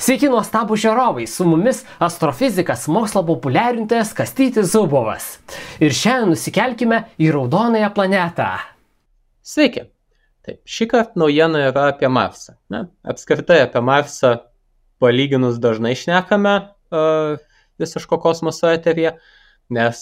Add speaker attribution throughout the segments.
Speaker 1: Sveiki nuostabų žiūrovai, su mumis astrofizikas, mokslo populiarintojas Kastytis Zubovas. Ir šiandien nusikelkime į raudonąją planetą.
Speaker 2: Sveiki. Taip, šį kartą naujiena yra apie Marsą. Apskritai apie Marsą palyginus dažnai šnekame visiško kosmoso eteryje, nes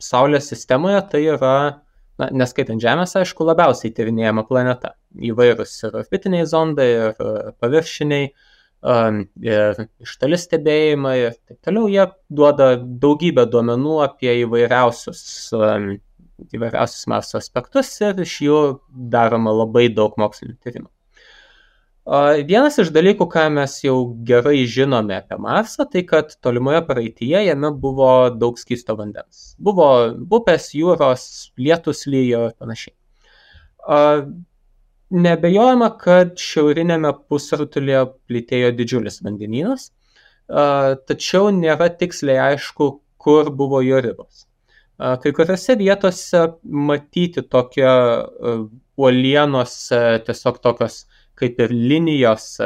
Speaker 2: Saulės sistemoje tai yra, neskaitant Žemės, aišku, labiausiai tyrinėjama planeta. Įvairūs ir orbitiniai zondai, ir paviršiniai, ir iš toli stebėjimai ir taip toliau. Jie duoda daugybę duomenų apie įvairiausius Marso aspektus ir iš jų daroma labai daug mokslinių tyrimų. Vienas iš dalykų, ką mes jau gerai žinome apie Marsą, tai kad tolimoje praeityje jame buvo daug skysto vandens. Buvo upės, jūros, lietus lijo ir panašiai. Neabejojama, kad šiaurinėme pusrutulyje plytėjo didžiulis vandenynas, tačiau nėra tiksliai aišku, kur buvo jo ribos. Kai kuriuose vietose matyti tokie uolienos, tiesiog tokios kaip ir linijos,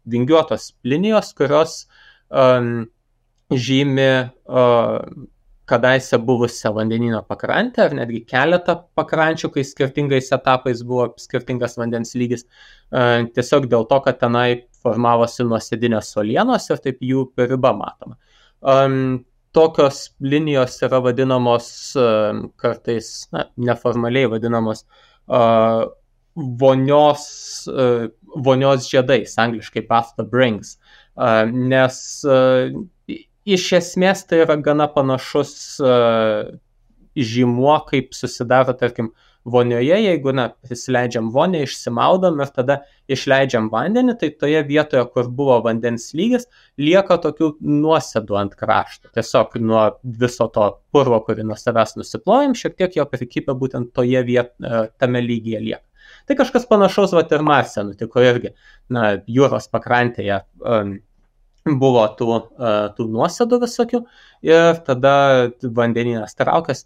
Speaker 2: vingiuotos linijos, kurios žymi kadaise buvusią vandenyno pakrantę, ar netgi keletą pakrančių, kai skirtingais etapais buvo skirtingas vandens lygis, tiesiog dėl to, kad tenai formavosi nuosėdinės uolienos ir taip jų riba matoma. Tokios linijos yra vadinamos kartais, neformaliai vadinamos vonios žiedais, angliškai bathtub rings, nes iš esmės tai yra gana panašus žymuo, kaip susidaro, tarkim, vonioje, jeigu prisileidžiam vonią, išsimaudom ir tada išleidžiam vandenį, tai toje vietoje, kur buvo vandens lygis, lieka tokių nuosėdų ant krašto. Tiesiog nuo viso to purvo, kurį nuo savęs nusiplojam, šiek tiek jo prikipę būtent toje tame lygyje lieka. Tai kažkas panašaus ir Marse nutiko irgi. Jūros pakrantėje buvo tų nuosėdų visokių ir tada vandenynas traukėsi,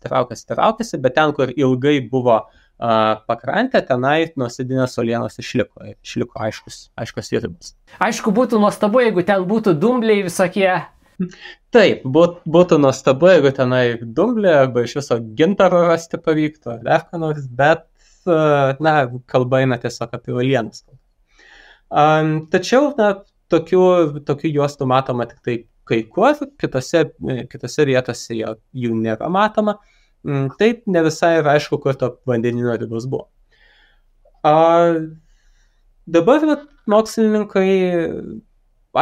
Speaker 2: bet ten, kur ilgai buvo pakrantė, tenai nuosėdinės uolienos išliko aiškus ribos.
Speaker 1: Aišku, būtų nuostabu, jeigu ten būtų dumbliai visokie.
Speaker 2: Taip, būtų nuostabu, jeigu tenai dumbliai arba iš viso gintaro rasti pavyktų, ar dar ką nors, bet kalba eina tiesiog apie uolienas. Tačiau, tokių juostų matoma tik tai kai kur, kitose vietose jų nėra matoma. Taip ne visai yra aišku, kur to vandenyno ribos buvo. Dabar mokslininkai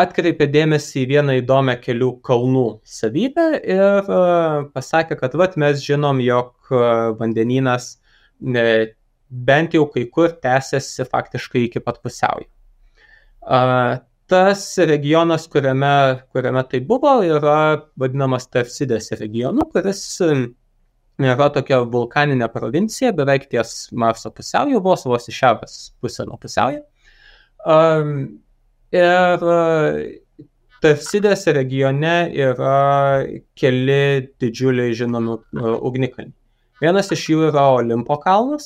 Speaker 2: atkreipė dėmesį į vieną įdomią kelių kalnų savybę ir pasakė, kad mes žinom, jog vandenynas bent jau kai kur tęsiasi faktiškai iki pat pusiaujo. Tas regionas, kuriame tai buvo, yra vadinamas Tarsidės regionu, kuris yra tokia vulkaninė provincija, beveik ties Marso pusiaujo, vos į šiaurės pusę nuo pusiaujo. Ir Tarsidės regione yra keli didžiuliai žinomi ugnikalniai. Vienas iš jų yra Olimpo kalnas.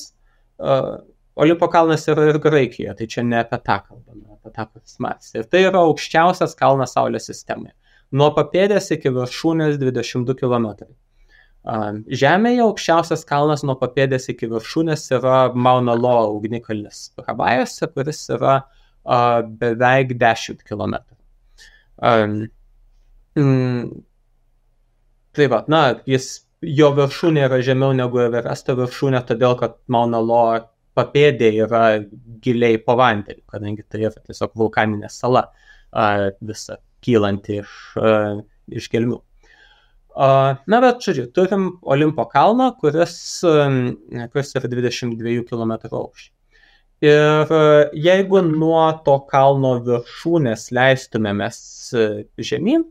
Speaker 2: Olimpo kalnas yra ir Graikijoje, tai čia ne apie tą kalbame, apie tą, kuris Marse. Ir tai yra aukščiausias kalnas Saulės sistemoje. Nuo papėdės iki viršūnės 22 km. Žemėje aukščiausias kalnas nuo papėdės iki viršūnės yra Mauna Loa ugnikalnis Havajuose, kuris yra beveik 10 km. Jo viršūnė yra žemiau negu Everesto viršūnė, todėl kad Mauna Loa papėdė yra giliai po vandeniu, kadangi tai yra tiesiog vulkaninė sala visa kylanti iš gelmių. Bet turim Olimpo kalną, kuris yra 22 km aukščio. Ir jeigu nuo to kalno viršūnės leistumėmės žemyn,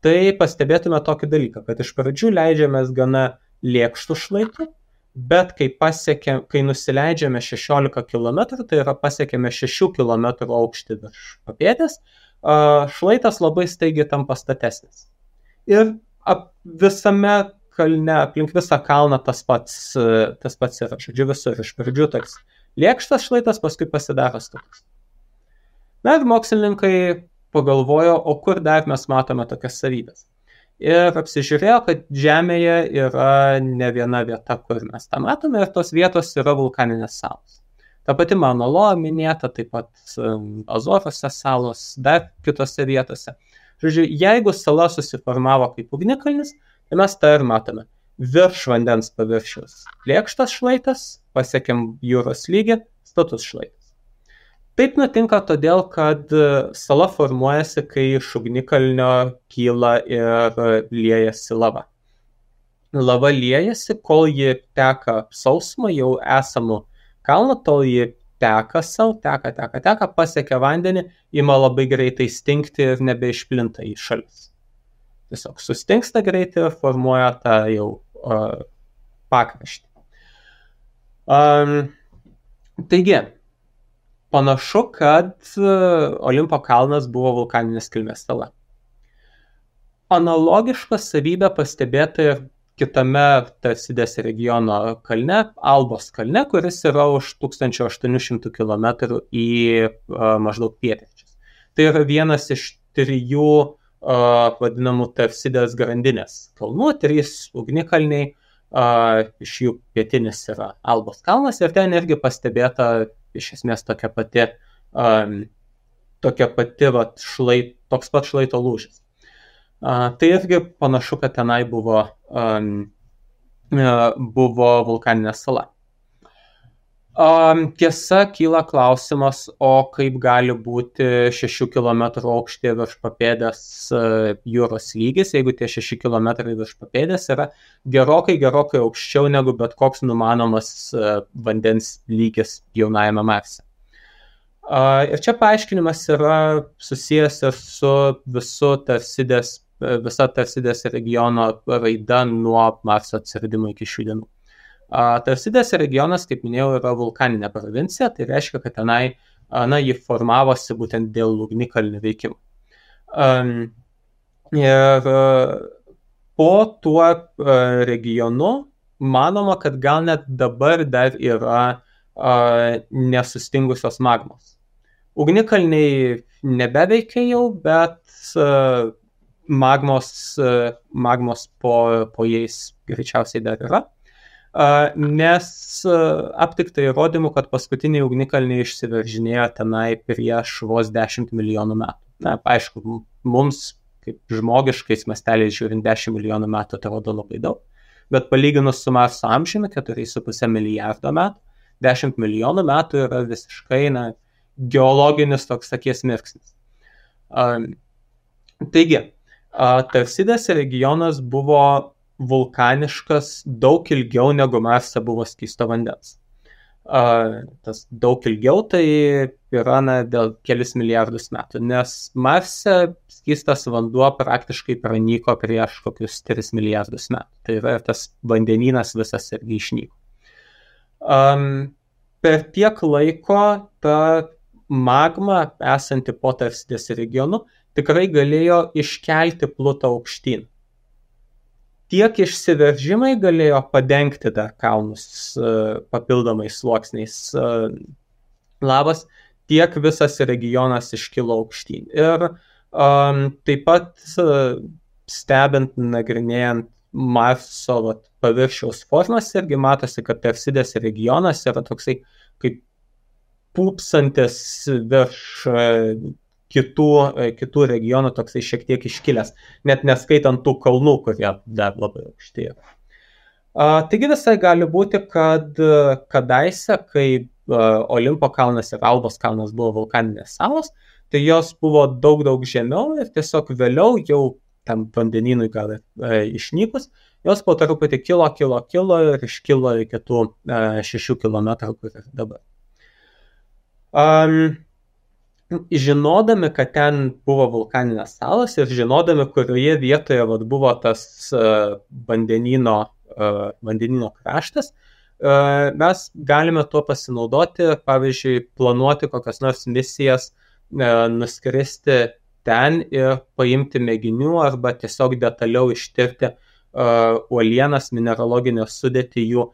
Speaker 2: tai pastebėtume tokį dalyką, kad iš pradžių leidžiamės gana lėkštų šlaitų, bet kai nusileidžiame 16 km, tai yra pasiekėme 6 km aukštį virš papėdės, šlaitas labai staigiai tampa statesnis. Ir visame kalne, aplink visą kalną tas pats yra. Visur iš pradžių toks lėkštas šlaitas, paskui pasidaro status. Ir mokslininkai pagalvojo, o kur dar mes matome tokias savybės. Ir apsižiūrėjo, kad Žemėje yra ne viena vieta, kur mes tą matome, ir tos vietos yra vulkaninės salos. Ta pati Mauna Loa minėta, taip pat Azorose salos, dar kitose vietose. Žodžiu, jeigu sala susiformavo kaip ugnikalnis, tai mes tą ir matome. Virš vandens paviršiaus lėkštas šlaitas, pasiekėm jūros lygį, status šlaitas. Taip nutinka todėl, kad sala formuojasi, kai iš ugnikalnio kyla ir liejasi lava. Lava liejasi, kol ji teka sausumą jau esamų kalną, tol ji teka savo, teka, pasiekia vandenį, ima labai greitai stingti ir nebeišplinta į šalis. Tiesiog sustingsta greitai ir formuoja tą jau pakraštį. Taigi, panašu, kad Olimpo kalnas buvo vulkaninės kilmės sala. Analogišką savybę pastebėta ir kitame Tarsidės regiono kalne, Albos kalne, kuris yra už 1800 km į maždaug pietryčius. Tai yra vienas iš 3 vadinamų Tarsidės grandinės kalnų, 3 ugnikalniai, iš jų pietinis yra Albos kalnas ir ten irgi pastebėta iš esmės tokia pati toks pat šlaito lūžis. Tai irgi panašu, kad tenai buvo vulkaninė sala. Tiesa, kyla klausimas, o kaip gali būti 6 km aukštyje virš papėdės jūros lygis, jeigu tie 6 km virš papėdės yra gerokai aukščiau negu bet koks numanomas vandens lygis jaunajame Marse. Ir čia paaiškinimas yra susijęs ir su visa Tarsidės regiono raida nuo Marso atsiradimo iki šių dienų. Tarsidės regionas, kaip minėjau, yra vulkaninė provincija, tai reiškia, kad tenai ji formavosi būtent dėl ugnikalnių veikimų. Ir po tuo regionu manoma, kad gal net dabar dar yra nesustingusios magmos. Ugnikalniai nebeveikia jau, bet magmos po jais greičiausiai dar yra. Nes aptikta įrodymų, kad paskutiniai ugnikalniai išsiveržinėjo tenai prieš vos 10 milijonų metų. Na, aišku, mums, kaip žmogiškais masteliais žiūrint, 10 milijonų metų atrodo labai daug, bet palyginus su Marso amžiumi, 4,5 milijardo metų, 10 milijonų metų yra visiškai geologinis toks akies mirksnis. Taigi, Tarsidės regionas buvo vulkaniškas daug ilgiau negu Marse buvo skysto vandens. Tas daug ilgiau tai yra dėl kelis milijardus metų, nes Marse skystas vanduo praktiškai pranyko prieš kokius 3 milijardus metų. Tai yra tas vandenynas visas irgi išnyko. Per tiek laiko ta magma esanti po Tarsidės regionu tikrai galėjo iškelti Plutą aukštyn. Tiek išsiveržimai galėjo padengti dar kalnus papildomais sluoksniais lavos, tiek visas regionas iškilo aukštyn. Ir taip pat stebint, nagrinėjant Marso paviršiaus formas, irgi matosi, kad Tarsidės regionas yra toksai kaip pūpsantis virš kitų regionų, toksai šiek tiek iškilęs, net neskaitant tų kalnų, kurie dar labai aukšti yra. Taigi visai gali būti, kad kadaise, kai Olimpo kalnas ir Albos kalnas buvo vulkaninės salos, tai jos buvo daug žemiau ir tiesiog vėliau jau tam vandenynui gal išnykus, jos po truputį kilo ir iškilo iki tų 6 km, kur ir dabar. Žinodami, kad ten buvo vulkaninės salos ir žinodami, kurioje vietoje buvo tas vandenyno kraštas, mes galime tuo pasinaudoti, pavyzdžiui, planuoti kokias nors misijas, nuskristi ten ir paimti mėginių arba tiesiog detaliau ištirti uolienas, mineraloginę sudėtį jų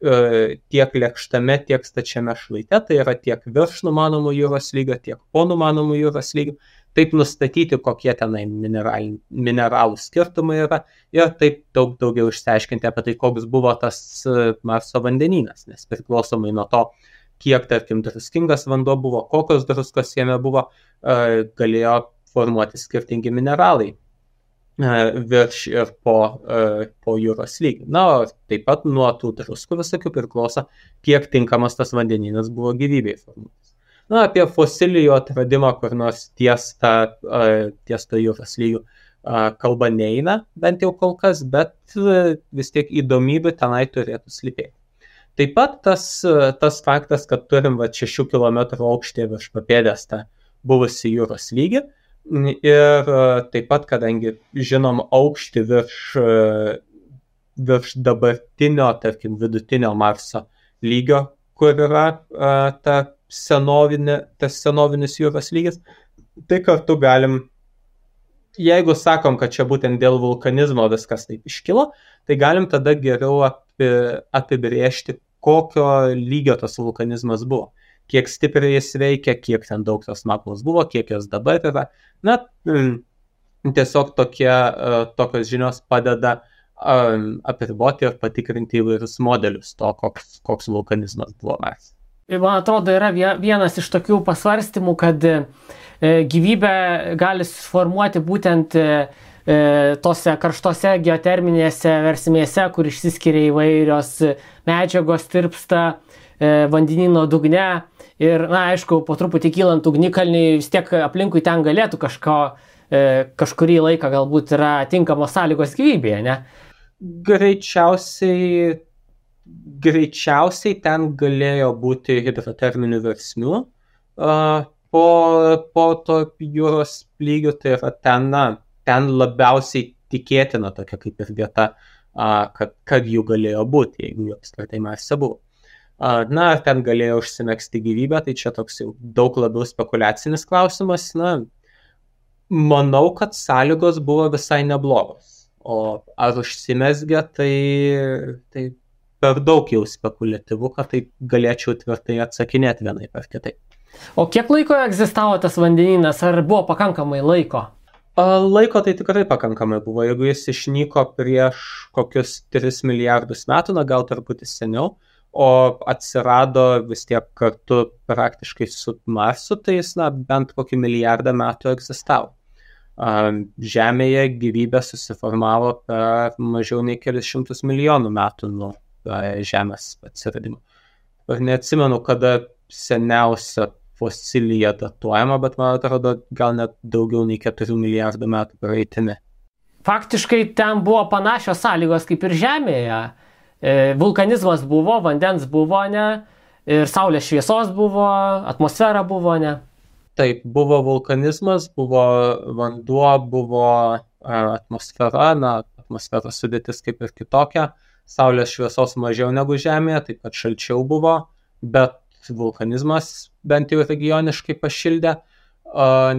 Speaker 2: tiek lėkštame, tiek stačiame šlaite, tai yra tiek virš numanomų jūros lygio, tiek po numanomų jūros lygio, taip nustatyti, kokie tenai mineralų skirtumai yra ir taip daug daugiau išsiaiškinti apie tai, koks buvo tas Marso vandenynas, nes priklausomai nuo to, kiek, tarkim, druskingas vanduo buvo, kokios druskos jame buvo, galėjo formuoti skirtingi mineralai virš ir po jūros lygį. Na, o taip pat nuo tų druskų visokių priklauso, kiek tinkamas tas vandenynas buvo gyvybei formuotis. Na, apie fosilijų atradimą kur nors ties to jūros lygių kalba neina, bent jau kol kas, bet vis tiek įdomybių tenai turėtų slypėti. Taip pat tas faktas, kad turim 6 km aukštį virš papėdės tą buvusi jūros lygį ir taip pat, kadangi žinom aukštį virš dabartinio, tarkim, vidutinio Marso lygio, kur yra tas senovinis jūros lygis, tai kartu galim, jeigu sakom, kad čia būtent dėl vulkanizmo viskas taip iškilo, tai galim tada geriau apibrėžti, kokio lygio tas vulkanizmas buvo, kiek stipriai jis veikia, kiek ten daug tos magmos buvo, kiek jos dabar yra. Na, tiesiog tokios žinios padeda apriboti ir patikrinti įvairius modelius to, koks vulkanizmas buvo Marse.
Speaker 1: Man atrodo, yra vienas iš tokių pasvarstymų, kad gyvybė gali suformuoti būtent tose karštose geoterminėse versmėse, kur išsiskiria įvairios medžiagos, tirpsta vandenyno dugne. Ir, na, aišku, po truputį kylant ugnikalniui, vis tiek aplinkui ten galėtų kažkurį laiką galbūt yra tinkamos sąlygos gyvybėje, ne?
Speaker 2: Greičiausiai ten galėjo būti hidroterminių versmių po to jūros lygių, tai yra ten labiausiai tikėtina tokia kaip ir vieta, kad jų galėjo būti, jeigu jų apskritai Marse buvo. Na, ar ten galėjo užsimegzti gyvybę, tai čia toks jau daug labiau spekuliacinis klausimas. Na, manau, kad sąlygos buvo visai neblogos, o ar užsimezgė, tai per daug jau spekuliatyvu, kad tai galėčiau tvirtai atsakinėti vienaip ar kitaip.
Speaker 1: O kiek laiko egzistavo tas vandenynas, ar buvo pakankamai laiko?
Speaker 2: Laiko tai tikrai pakankamai buvo, jeigu jis išnyko prieš kokius 3 milijardus metų, na gal truputį seniau, o atsirado vis tiek kartu praktiškai su Marsu, tai jis bent kokį milijardą metų egzistavo. Žemėje gyvybė susiformavo per mažiau nei kelius šimtus milijonų metų nuo Žemės atsiradimo. Ir neatsimenu, kada seniausia fosilija datuojama, bet man atrodo gal net daugiau nei 4 milijardų metų praeitimi.
Speaker 1: Faktiškai ten buvo panašios sąlygos kaip ir Žemėje. Vulkanizmas buvo, vandens buvo, ne, ir saulės šviesos buvo, atmosfera buvo, ne.
Speaker 2: Taip, buvo vulkanizmas, buvo vanduo, buvo atmosfera, atmosferos sudėtis kaip ir kitokia, saulės šviesos mažiau negu Žemėje, taip pat šalčiau buvo, bet vulkanizmas bent jau regioniškai pašildė,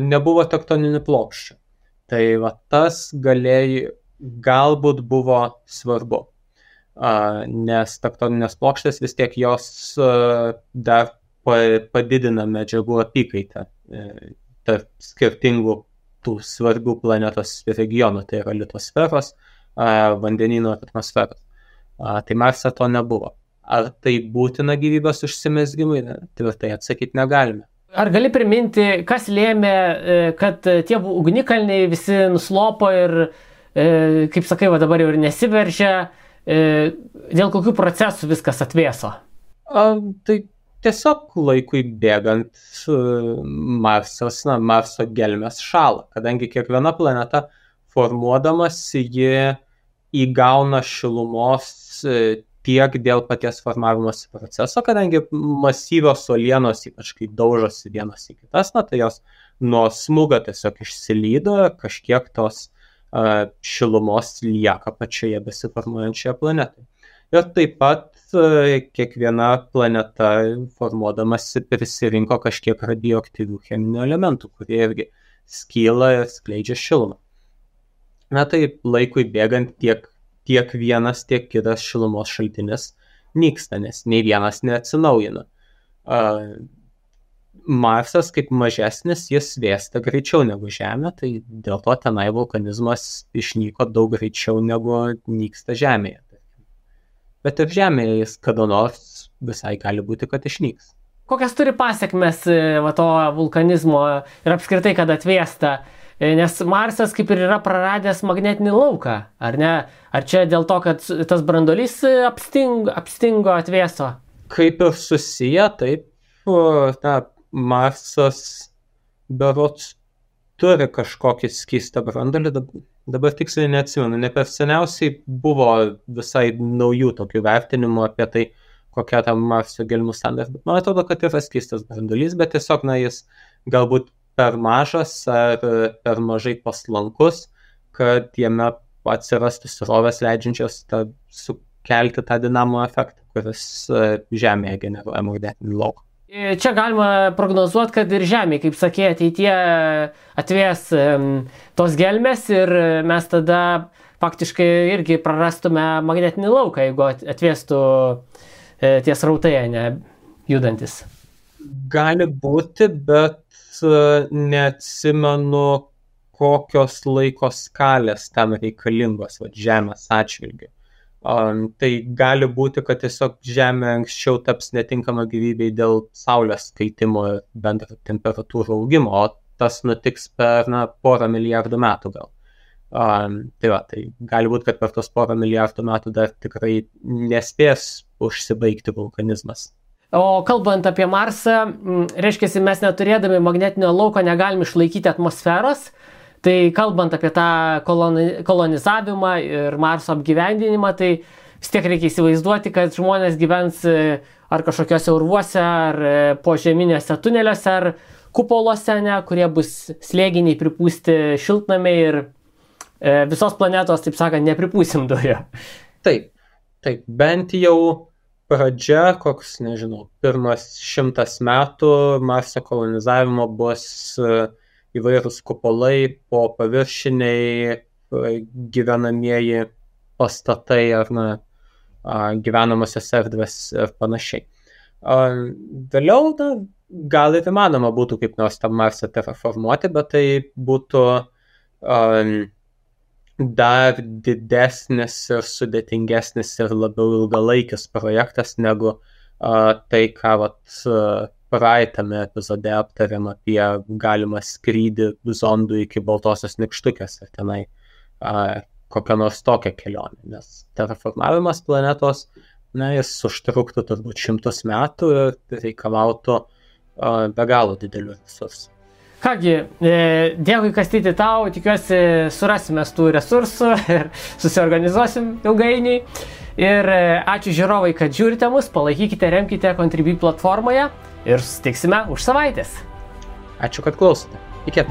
Speaker 2: nebuvo tektoninių plokščių. Tai tas galbūt buvo svarbu. Nes tektoninės plokštės vis tiek jos dar padidina medžiagų apykaitą tarp skirtingų tų svarbių planetos regionų, tai yra litosferos, vandenyno ir atmosferos. Tai Marse to nebuvo. Ar tai būtina gyvybės užsimezgimui? Tvirtai atsakyti negalime.
Speaker 1: Ar gali priminti, kas lėmė, kad tie ugnikalniai visi nuslopo ir, kaip sakai, dabar jau ir nesiveržia, dėl kokių procesų viskas atvėso?
Speaker 2: Tai tiesiog laikui bėgant Marso gelmės šąla, kadangi kiekviena planeta formuodamas ji įgauna šilumos tiek dėl paties formavimosi proceso, kadangi masyvios uolienos, ypač kai daužosi vienos į kitas, tai jos nuo smūgio tiesiog išsilydo, kažkiek tos šilumos lieka pačioje besiformuojančioje planetoje. Ir taip pat kiekviena planeta formuodamasi prisirinko kažkiek radioaktyvių cheminių elementų, kurie irgi skyla ir skleidžia šilumą. Tai laikui bėgant tiek vienas, tiek kitas šilumos šaltinis nyksta, nes nei vienas neatsinaujina. Marsas kaip mažesnis, jis vėsta greičiau negu Žemė, tai dėl to tenai vulkanizmas išnyko daug greičiau negu nyksta Žemėje. Bet ir Žemėje jis kada nors visai gali būti, kad išnyks.
Speaker 1: Kokias turi pasiekmes to vulkanizmo ir apskritai, kad atvėsta? Nes Marsas kaip ir yra praradęs magnetinį lauką, ar ne? Ar čia dėl to, kad tas branduolys apstingo, atvėso?
Speaker 2: Kaip ir susiję, taip, Marsas berods turi kažkokį skystą branduolį, dabar tiksliai neatsimenu, ne per seniausiai buvo visai naujų tokių vertinimų apie tai, kokia ta Marso gelmių sandaras, bet man atrodo, kad yra skystas branduolys, bet tiesiog, jis galbūt per mažas ar per mažai paslankus, kad jame atsirastų srovės leidžiančios sukelti tą dinamo efektą, kuris Žemėje generuoja magnetinį lauką.
Speaker 1: Čia galima prognozuoti, kad ir Žemė, kaip sakė, ateityje atvės tos gelmės ir mes tada faktiškai irgi prarastume magnetinį lauką, jeigu atvėstų tie srautai, ne judantis.
Speaker 2: Gali būti, bet neatsimenu, kokios laiko skalės tam reikalingos Žemės atžvilgiu. Tai gali būti, kad tiesiog Žemė anksčiau taps netinkama gyvybei dėl Saulės kaitimo ir bendro temperatūrų augimo, o tas nutiks per porą milijardų metų gal. Tai gali būti, kad per tos porą milijardų metų dar tikrai nespės užsibaigti vulkanizmas.
Speaker 1: O kalbant apie Marsą, reiškia, mes neturėdami magnetinio lauko negalim išlaikyti atmosferos, tai kalbant apie tą kolonizavimą ir Marso apgyvendinimą, tai vis tiek reikia įsivaizduoti, kad žmonės gyvens ar kažkokiuose urvuose, ar požeminiuose tuneliuose, ar kupoluose, kurie bus slėginiai pripūsti šiltnamiai ir visos planetos, taip sakant, nepripūsim dujų.
Speaker 2: Taip, bent jau pradžia, koks, pirmas 100 metų Marso kolonizavimo bus įvairūs kupolai, po paviršiniai gyvenamieji pastatai ar gyvenamosios erdvės ir panašiai. Vėliau gal ir įmanoma būtų kaip nors tą Marsą terraformuoti, bet tai būtų dar didesnis ir sudėtingesnis ir labiau ilgalaikis projektas negu tai, ką praeitame epizode aptarėm apie galimą skrydį zondų iki Baltosios nykštukės ir tenai kokią nors tokią kelionę, nes terraformavimas planetos, jis užtruktų turbūt 100 metų ir reikalautų be galo didelių resursų.
Speaker 1: Kągi, dėkui Kastyti tau, tikiuosi surasime tų resursų ir susiorganizuosim ilgainiui. Ir ačiū žiūrovai, kad žiūrite mus, palaikykite, remkite Contribui platformoje ir susitiksime už savaitės.
Speaker 2: Ačiū, kad klausote. Iki.